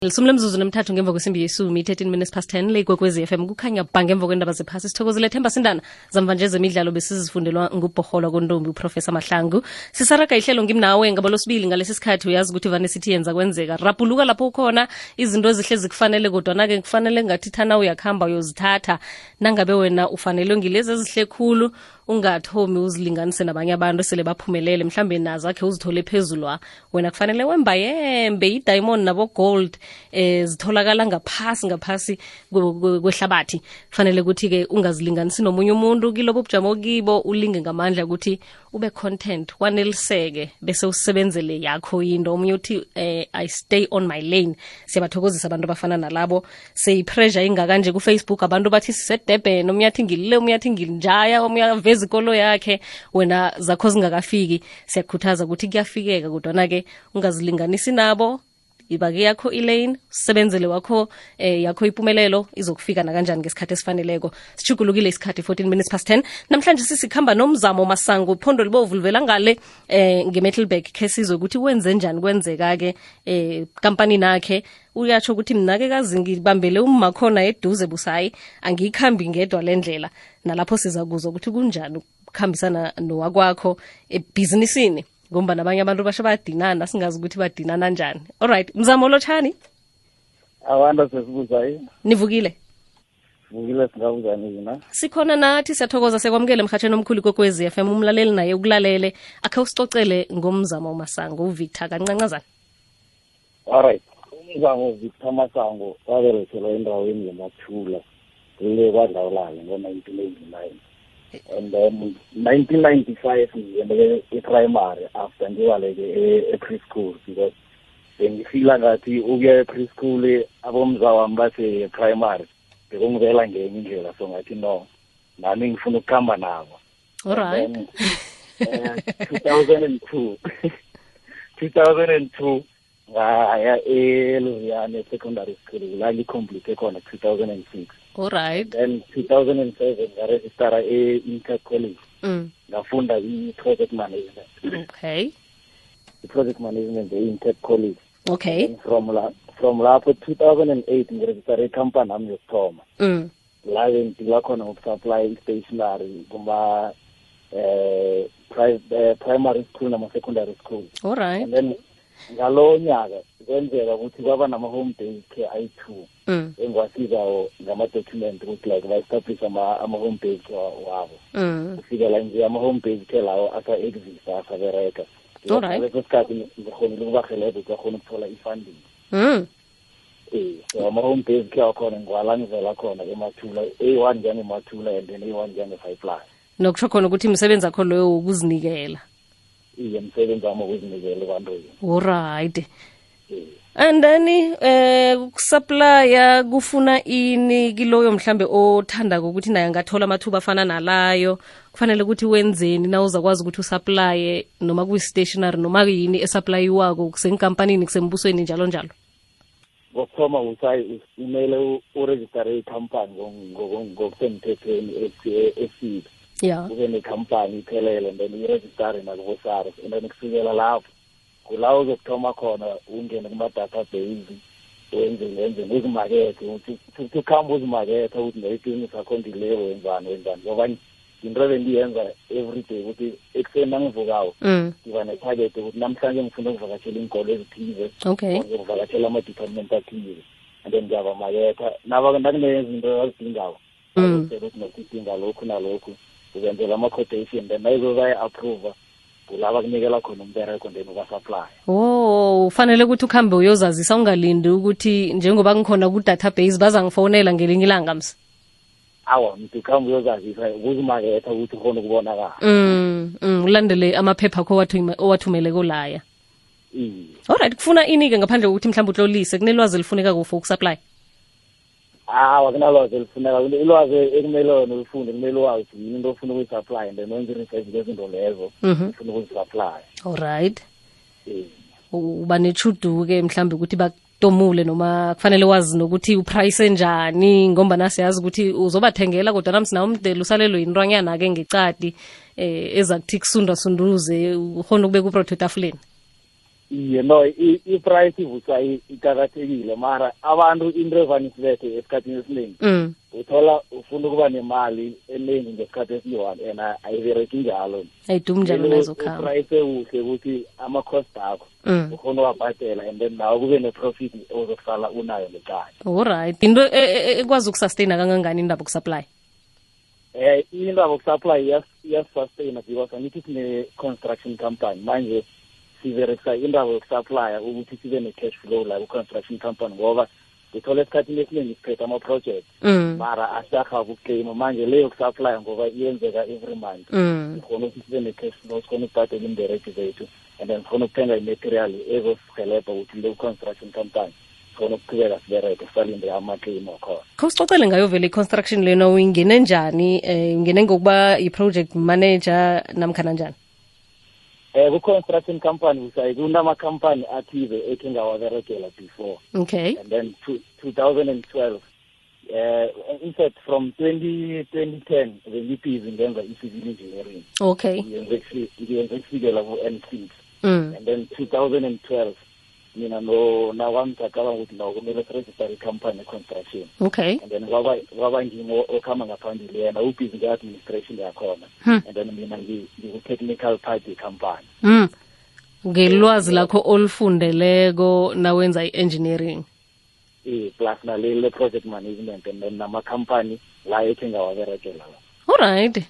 Lisumle mzuzu nemthathu ngemva kwesimbi yesumi 13 minutes past 10 le kwekwezi FM kukhanya bhange emva kwendaba zephasi sithokozele Themba Sindana zamva nje zemidlalo besizifundelwa ngubhoholo kontombi uProfessor Mahlangu sisaraga ihlelo ngimnawe ngabalo sibili ngalesi sikhathi uyazi ukuthi vane sithi yenza kwenzeka rapuluka lapho ukhona izinto ezihlezi kufanele kodwa nake kufanele ngathi thana uyakhamba uyozithatha nangabe wena ufanele ngilezi ezihle khulu ungathomi uzilinganise nabanye abantu sele baphumelele mhlambe nazakhe uzithole phezulwa wena kufanele wemba yembe i-diamond nabo gold zitholakala ngaphasi kwehlabathi kufanele ukuthi ke ungazilinganisi nomunye umuntu kilobo bujamo kibo ulinge ngamandla ukuthi ube content waneliseke bese usebenzele yakho into omunye uthi I stay on my lane siyabathokozisa abantu abafana nalabo say pressure ingaka nje ku Facebook abantu bathi sisedebhen omunye athi ngilile omunye athi ngilinjaya omunye aveza ikolo yakhe wena zakho zingakafiki siyakhuthaza ukuthi kuyafikeka kodwa na ke ungazilinganisi nabo ibake yakho ilane usebenzele wakho yakho impumelelo izokufika na kanjani ngesikhathi esifaneleko sichugulukile isikhathi 14 minutes past 10 namhlanje sisikhamba nomzamo Masango iphondo libovu livela ngale ngeMetalburg ke sizwe ukuthi wenze njani kwenzeka ke company nakhe uyatsho ukuthi mina ke kazi ngibambele ummakhona eduze busayi angikhambi ngedwa lendlela nalapho sizakuzwa ukuthi kunjani ukukhambisana nowakwakho ebusinessini ngomba nabanye abantu basho badinana singazi ukuthi badinana kanjani. Alright, mzamo lochani? Awanda sesibuzayo. Nivukile? Vukile singabuzani yina. Sikhona nathi siyathokoza sekwamukele emhathweni omkhulu kokwezi FM umlaleli naye ukulalele akhe usicocele ngomzamo Masango uVictor kancancazana. Alright, umzamo Victor Masango waberekelwa endaweni yeMathula le kwadlawulala ngo-1989. And then 1995 ngiyende e-primary after ngiwaleke e-preschool because bengifila ngathi ukuya e-preschool abomzawami base primary bekungivela ngenye indlela so ngathi no nami ngifuna ukuhamba nabo. Alright. 2002 ngaya eLuviane secondary school la ngicomplete khona 2006. Alright. Then 2007 ngaregister e-Inter College. Ngafunda i-project management. Okay. I-project management e-Inter College. Okay. And from lapho 2008 ngiregister i-company nami yokuthoma. La ngidila khona ngokusupply stationery kuma primary school nama secondary school. Alright. And then ngalo nyaka kwenzeka ukuthi kwaba nama-home based care ayi-2 engwasizayo ngama-document ukuthi like ba-establish ama-home based wabo kufikela nje ama-home based care lawo asa-exista asabereka leso sikhathi ngikhonile ukubahelebha ukuthi bakhona ukuthola i-funding so ama-home based care akhona ngiwala ngivela khona emathula A1 njengemathula and then A1 njenge-5+. Nokusho khona ukuthi imisebenzi akho loyo ukuzinikela. Iye msebenzi wami ukuzinikela ebantwini. Alright. And then ukusupplya kufuna ini kiloyo mhlambe othanda ukuthi naye ngathola amathuba afana nalayo kufanele ukuthi wenzeni na uzakwazi ukuthi usupply noma ku stationery noma yini esupplyiwako kusenkampanini kusembusweni njalo njalo. Ngokuthoma umele uregister i-company ngokusemthethweni eside. Yeah. Ube nekhampani iphelele and then uregister nakubo-SARS and then kusukela lapho kulawo uzokuthoma khona ungene kuma-database wenze uzimakethe ukuthi ukuhamba uzimakethe ukuthi nebhizinisi akho ndileko wenzani ngoba into bendiyenza everyday ukuthi ekuseni nangivukayo ngiba netarget ukuthi namhlanje ngifuna ukuvakashela iinkolo ezithize ngizokuvakashela ama-department athize and then ngiyabamaketha nakunezinto azidingako ukuthi nokudinga lokhu nalokhu uzenzela ama-quotation then nayizobayi-approva kulaba kunikela khona umbereko then ubasupply. Ufanele ukuthi ukhambe uyozazisa ungalindi ukuthi njengoba ngikhona ku-database bazangifonela ngelinye ilanga msi. Awa mntu ukhambe uyozazisa ukuzimaketha ukuthi ukhona ukubonakala. Ulandele amaphepha akho owathumele kolaya. Alright, kufuna ini-ke ngaphandle kokuthi mhlawumbe utlolise kunelwazi elifuneka for ukusupply? Kunalwazi elifuneka ilwazi ekumele wena ulifunde kumele wazi into ofuna ukuyisupply and then wenze i-research ngezinto lezo ufuna ukuzisupply. Alright. Uba nechudu-ke mhlawumbe ukuthi bakutomule noma kufanele wazi nokuthi uprice njani ngomba nasiyazi ukuthi uzobathengela kodwa namsina umdela usalelwe yintwanyana-ke ngecadi ezakuthi kusunda sunduze ukhona ukubeka uprotho etafuleni. no i-price ivusa iqakathekile mara abantu into evane isibethe esikhathini esiningi uthola ufuna ukuba nemali eningi ngesikhathi esiyi-one and ayibereki njalo ayidumi njalo nazokhamba uprice ewuhle ukuthi ama-cost akho ufuna uwabhadela and then nawe kube ne-profit ozokusala unayo ngekhaya. Alright, into ekwazi ukusustaina kangangani indaba yokusupply? Indaba yokusupply iyasustaina because angithi sine-construction company manje siberekisa indaba yokusupply ukuthi sibe ne-cash flow la ku-construction company ngoba uthola esikhathini esiningi siphethe ama-project mara asakha ukukleyima manje leyo yokusupply ngoba iyenzeka every month sikhona ukuthi sibe ne-cash flow sikhona ukubhadela imbereki zethu and then sikhona ukuthenga i-material ezosihelebha ukuthi le construction company sikhona ukuqhubeka sibereke sisalinde ama-claim akhona. Khawusicocele ngayo vele i-construction lena uyingene njani ungene ngokuba i-project manager namkhana njani? Ku-construction company kunama-company athize ekhe ngawaberekela before. Okay. And then 2012 in fact from 2010 bengibhizi ngenza i-civil engineering. Okay. Ngiyenze kufikela ku-N6 and then 2012 mina nawami ngacabanga ukuthi nawo kumele siregister i-company construction. Okay. And then kwaba ngimo okhamba ngaphambili yena ubhizi nge-administration yakhona and then mina ngiku-technical part ye-company. Ngelwazi lakho olufundeleko nawenza i-engineering plus nalele project management and then nama-company la ekhe ngawaberekela. Alright,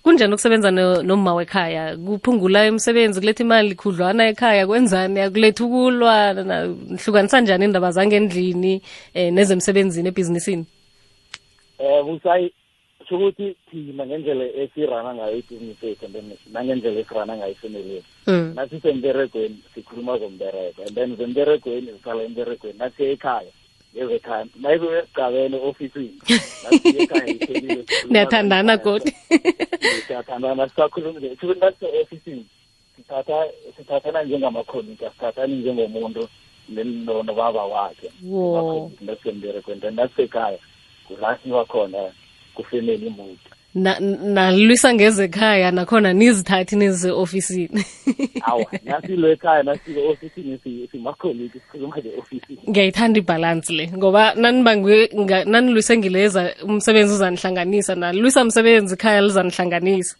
kunjani ukusebenza noma wekhaya? Kuphungula imisebenzi, kuletha imali khudlwana ekhaya, kwenzani? Akuletha ukulwa, nhlukanisa njani indaba zangendlini nezemsebenzini ebhizinisini? Busayi ukuthi thina ngendlela esirana ngayo ibhizinisi yethu and then nangendlela esirana ngayo ifamily yethu nasisemberegweni sikhuluma zombereko and then zemberegweni sisala emberegweni nasiye ekhaya ngezekhaya nayibe esigabeni ofisini nasiye ekhaya iphelile niyathandana kodwa siyathandana sisakhuluma nase-ofisini sithathana njengamakhonika sithathani njengomuntu nobaba wakhe nasemberegweni then nasisekhaya kulasiwa khona kufemeli mood nalwisa ngezekhaya nakhona nizithathi neze-ofisini. Awa nasilwe ekhaya nasile ofisini simakholiki sikhuluma nge-ofisini. Ngiyayithanda ibhalansi le ngoba nanilwise ngileza umsebenzi uzanihlanganisa nalwisa umsebenzi ikhaya lizanihlanganisa.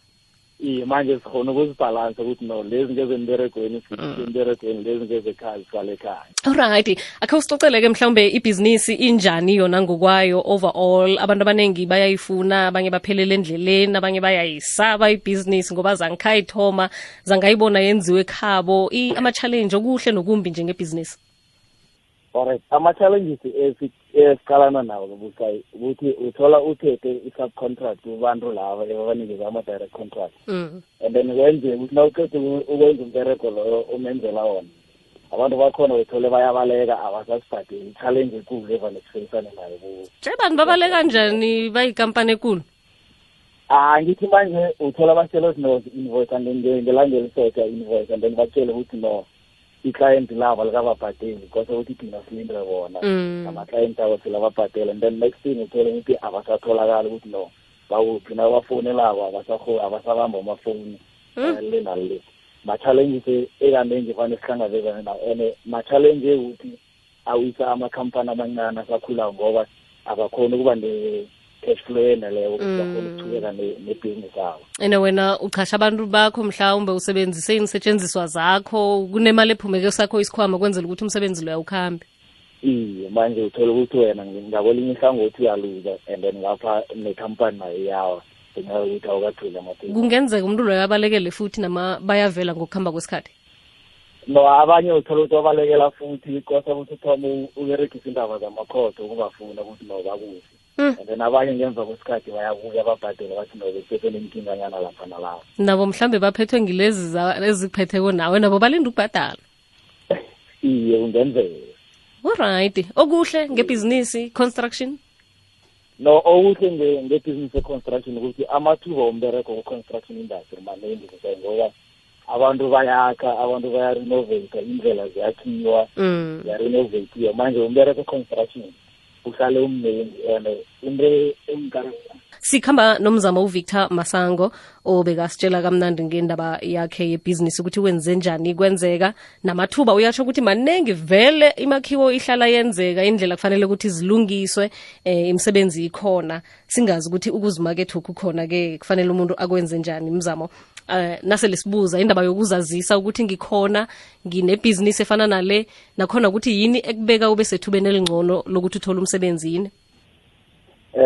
Manje sikhona ukuzibhalansa ukuthi no lezi ngezemberegweni emberegweni lezi ngezekhaya zisale ekhaya. Alright, akhe usicocele-ke mhlawumbe ibhizinisi injani yona ngokwayo overall? Abantu abaningi bayayifuna, abanye baphelele endleleni, abanye bayayisaba ibhizinisi ngoba zangikhayithoma zangayibona yenziwe ekhabo. Ama-challenge okuhle nokumbi njengebhizinisi. Alright, ama-challenges esiqalana nawo Busayi ukuthi uthola uthethe i-subcontract kubantu laba ebabanikeza ama-direct contract and then kwenzeka ukuthi nawuqeda ukwenza umbereko loyo umenzela wona abantu bakhona uthole bayabaleka abasasibhadeli i-challenge ekulu evane sifeyisane nayo kuwo. Abantu babaleka njani bayikampani ekulu? Ngithi manje uthola batshela ukuthi no invoice and then ngelanga elisotsha invoice and then batshele ukuthi no i-client labo likababhadeli kose ukuthi thina silinde bona ama-client abo silababhadela and then next thing uthole ukuthi abasatholakali ukuthi no bawuphi nabafonelabo abasabamba amafoni le nale. Ma-challenges ekaningi fane sihlangabezane nawo and ma-challenge ekuthi awisa amakhampani amancane asakhula ngoba abakhona ukuba cash flow eneleyo ukuthi bakhona ukuchubeka nebhizinisi abo. And wena uchasha abantu bakho mhlawumbe usebenzise inisetshenziswa zakho, kunemali ephumeke sakho isikhwama kwenzela ukuthi umsebenzi lo awukhambi. Manje uthola ukuthi wena ngakwelinye ihlangothi uyaluza and then ngapha nekhampani nayo iyawa ngenxa yokuthi awukatholi amaphepha. Kungenzeka umuntu loyo abalekele futhi nama bayavela ngokuhamba kwesikhathi? No, abanye uthola ukuthi wabalekela futhi kosa ukuthi uthome uberegisa indaba zamakhodo ukubafuna ukuthi no bakuhle. And then abanye ngemva kwesikhathi bayabuya babhadela bathi no besesenenkinganyana lapha nalapha. Nabo mhlambe baphethwe ngilezi ezikuphetheko nawe nabo balinda ukubhadala. Kungenzeka. Alright, okuhle ngebhizinisi construction? No, okuhle ngebhizinisi construction ukuthi amathuba ombereko ku-construction industry maningi ngoba abantu bayakha, abantu bayarenovate, indlela ziyakhiwa, ziyarenovatiwa. Manje umbereko construction uhlale umnengi and into engikara sikhamba nomzamo uVictor Masango obekasitshela kamnandi ngendaba yakhe yebhizinisi ukuthi wenze njani kwenzeka namathuba uyasho ukuthi manengi vele imakhiwo ihlala yenzeka indlela kufanele ukuthi zilungiswe imisebenzi ikhona singazi ukuthi ukuzimakethe ukukhona ke kufanele umuntu akwenze njani imzamo nase lesibuza indaba yokuzazisa ukuthi ngikhona nginebhizinisi efana nale nakhona ukuthi yini ekubeka ube sethubeni elingcono lokuthi uthole umsebenzi yini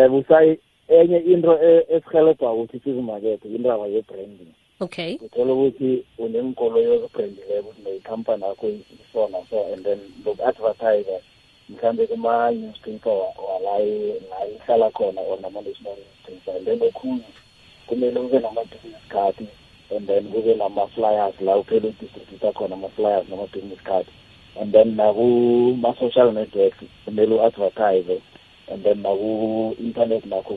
busayi enye into esihelebha ukuthi sizimakethe indaba ye-branding. Okay. Uthola ukuthi unenkolo yokubrandileko ukuthi nekhampani yakho isona so and then loku-advertise mhlawumbe kuma-newspaper la ihlala khona or nama-national newspaper and then okhunye kumele ube nama-business card and then kube nama-flyers la uphela udistributha khona ama-flyers nama-business card and then nakuma-social networks kumele u-advertise and then naku-internet nakho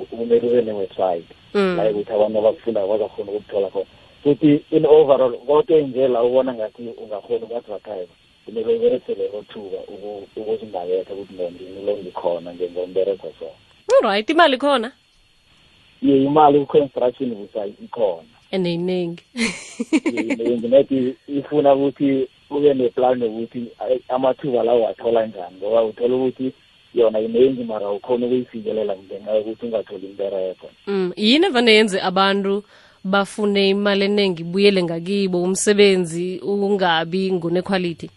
kumele ube ne-website la ukuthi abantu abakufunda bazakhona ukuthola khona futhi in overall konke nje la ubona ngathi ungakhona uku-advertise kumele uberesele othuba ukuzimaketha ukuthi lo ngikhona ngombereko so alright imali khona imali ku-construction busayi ikhona eneyiningi nethi ifuna ukuthi ube neplan yokuthi amathuba lawo wathola njani ngoba uthola ukuthi yona iningi mara ukhona ukuyifikelela ngenxa yokuthi ungatholi imbereko yini evane yenze abantu bafune imali eningi buyele ngakibo umsebenzi ungabi ngune-quality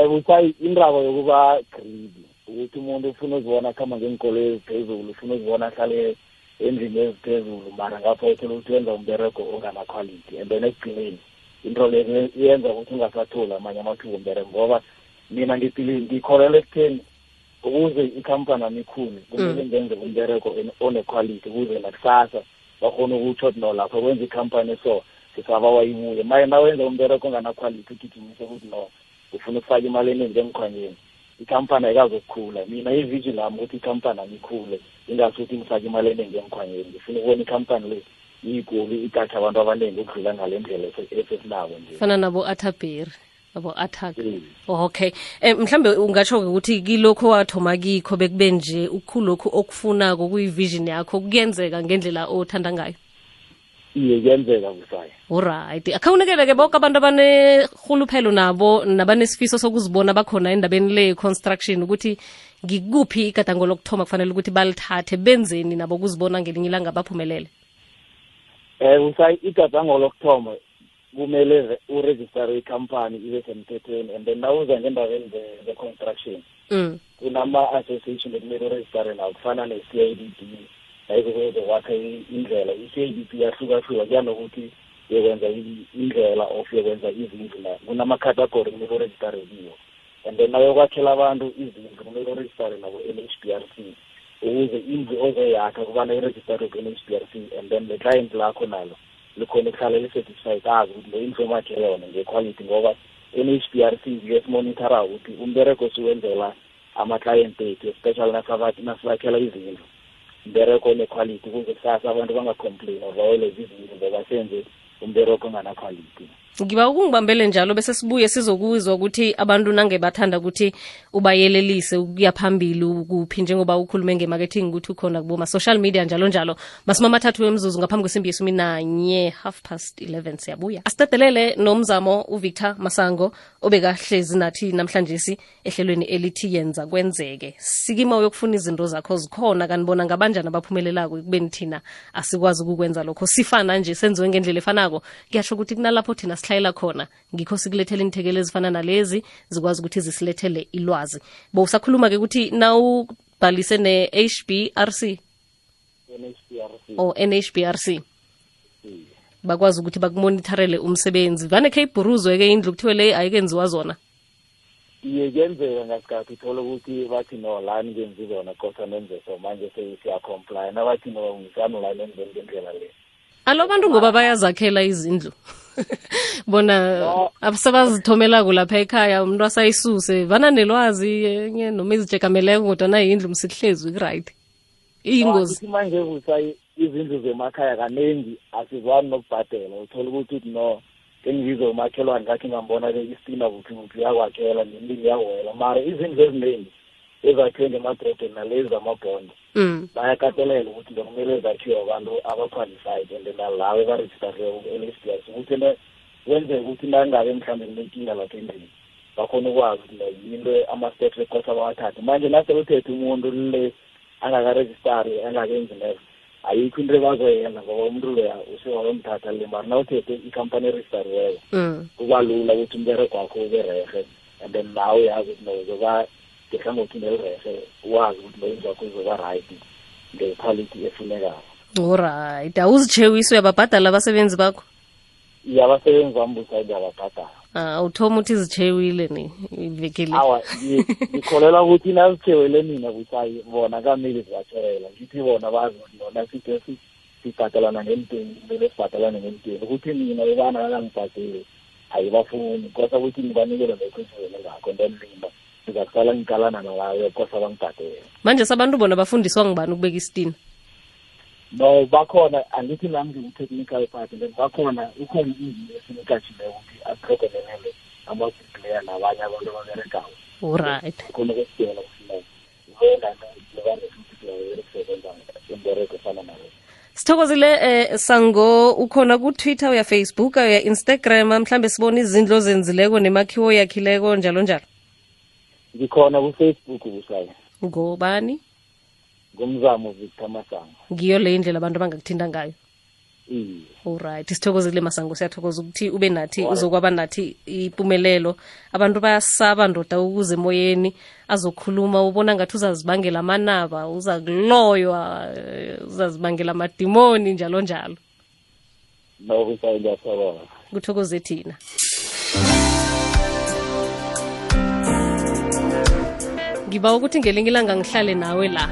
busayi indaba yokuba greedy ukuthi umuntu ufuna uzibona khamba ngenkolo eziphezulu ufuna uzibona ahlale endlini eziphezulu mara ngapha uthola ukuthi wenza umbereko ongana-quality and then ekugcineni into le yenza ukuthi ungasatholi amanye amathuba ombereko ngoba mina ngikholelwa ekutheni ukuze ikhampani ami ikhule kumele ngenze umbereko one-quality ukuze nakusasa bakhona ukutsho ukuthi no lapho kwenza ikhampani so sisaba wayibuye maye nawenza umbereko ongana-quality ugijimise ukuthi no ufuna ukufaka imali eningi emkhwanyeni ikhampani ayikazokukhula mina ivision lami ukuthi ikhampani ami ikhule ingasuthi ngifake imali eningi emkhwanyeni ngifuna ukubona ikhampani le iyigoli igatha abantu abaningi ukudlula ngale ndlela esesinabo nje fana nabo Athaberi abo attack okay mhlambe ungatsho ukuthi kilokho wathoma kikho bekube nje ukukhulokho okufunako kuyivision yakho kuyenzeka ngendlela othanda ngayo iye kuyenzeka busayi alright akhawunekele ke bonke abantu abanehuluphelo nabo nabanesifiso sokuzibona bakhona endabeni le construction ukuthi ngikuphi igadango lokuthoma kufanele ukuthi balithathe benzeni nabo kuzibona ngelinye ilanga baphumelele busayi igadango lokuthoma kumele uregister ikhampani ibe semthethweni and then nawuza ngendabeni ze-construction kunama-association ekumele uregistere nawo kufana ne-CIDP ayikuzowakha indlela i-CIDP yahlukahluka kuya nokuthi yokwenza indlela of yokwenza izindlu na kunama-category kumele uregistere kiwo and then nawuyokwakhela abantu izindlu kumele uregistere nabo NHBRC ukuze indlu ozoyakha kubana iregistere ku-NHBRC and then le-client lakho nalo likhona ukuhlala li-certified azi ukuthi le indlu emakhe yona nge-quality ngoba NHBRC ngiyesimonithara ukuthi umbereko siwenzela ama-client ethu especially nasibakhela izindlu umbereko one-quality ukuze kusasa abantu bangacomplain bawele izindlu ngoba senze umbereko ongana-quality ngiba ukungibambele njalo bese sibuye sizokuzwa ukuthi abantu nange bathanda ukuthi ubayelelise ukuya phambili ukuphi njengoba ukhulume nge-marketing ukuthi ukhona kuboma social media njalo njalo masimama mathathu wemzuzu ngaphambi kwesimbi yesumi nanye 11:30 siyabuya asitadelele nomzamo uVictor Masango obekahlezi nathi namhlanje ehlelweni elithi yenza kwenzeke sikima uyokufuna izinto zakho zikhona kanibona ngabanjani abaphumelelako kubeni thina asikwazi ukukwenza lokho sifana nje senziwe ngendlela efanako kuyasho ukuthi kunalapho thina sihlayela khona ngikho sikulethele inthekelo ezifana nalezi zikwazi ukuthi zisilethele ilwazi bo usakhuluma ke ukuthi nawubhalise ne-HBRC NHBRC bakwazi ukuthi bakumonitorele umsebenzi vane khe ibhuruzwe ke indlu kuthiwe le ayikenziwa zona iye kuyenzeka ngasikhathi uthola ukuthi bathi no lani ngenzi zona kosa nenze so manje siya-comply nabathi no ngisani la nenzeni ngendlela le alo bantu ngoba bayazakhela izindlu bona abasebazithomelako lapha ekhaya umuntu asayisuse vana nelwazi enye noma izijekameleko kodwa na yindlu msihlezi right iyingozi manje busayi izindlu zemakhaya kaningi asizwani nokubhadela uthola ukuthi no engizo umakhelwane ngakhe ngambona ke istina ukuthi uyakwakhela nemini yawela mara izindlu eziningi ezakhiwe ngemadrobheni nalezi zamabhondo bayakatelela ukuthi bekumele zakhiwe abantu aba-qualified and nalawo ebarejistariwe ku-NSFAS ukuthi wenzeka ukuthi nangabe mhlawumbe kunenkinga lapha endlini bakhona ukwazi ukuthi into ama-steps ekose abawathathe manje naseluthethe umuntu le angakarejistari angakenzi lezo ayikho into ebazoyenza ngoba umuntu loya usewayomthatha le mari nawuthethe ikhampani erejistariweyo kuba lula ukuthi umberego wakho ube rehe and then nawe uyazi ukuthi nozoba ngehlangothi nelirehe wazi ukuthi loyenzi wakho uzoba right ngequality efunekayo. Alright, awuzitshewiswe uyababhadala abasebenzi bakho? Abasebenzi bami busayidi ababhadala. Uthoma uthi zitshewile ni ivekele. Awa, ngikholela ukuthi nazitshewele mina busayi bona kamele zibatshewela ngithi bona bazi ukuthi bona sibhadalana ngentweni kumele sibhadalane ngentweni ukuthi mina bebana kangibhadeli ayibafuni kosa ukuthi ngibanikele nekhwesivele ngakho and then mina ngizaqala ngiqalana nalayo kosa bangibhadele. Manje sabantu bona bafundiswa ngibani ukubeka isitina? No, bakhona angithi nami ngi-technical part and then bakhona ukhona izinto esinikatshileyo ukuthi aprogramelele ama-player nabanye abantu ababeregayo. Alright. Khona kwesidela kufuneka wena nembereko efana nayo. Sithokozile Sango, ukhona ku-Twitter uya Facebook uya Instagram mhlambe sibona izindlu ozenzileko nemakhiwo yakhileko njalo njalo? Ngikhona ku-Facebook busayi. Ngobani? Ngumzamo Victor Masango. Ngiyo le indlela abantu abangakuthinta ngayo. Alright, sithokozile Masango, siyathokoza ukuthi ube nathi uzokwaba nathi impumelelo. Abantu bayasaba ndoda ukuze emoyeni azokhuluma ubona ngathi uzazibangela amanaba, uzakuloywa, uzazibangela amadimoni njalo njalo. No kusayiyasaba. Kuthokoze thina. Ngiba ukuthi ngelinye ilanga ngihlale nawe la.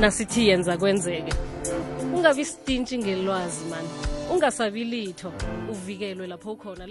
Nasithi yenza kwenzeke. Ungabi stinchi ngelwazi man. Ungasabi litho, uvikelwe lapho khona.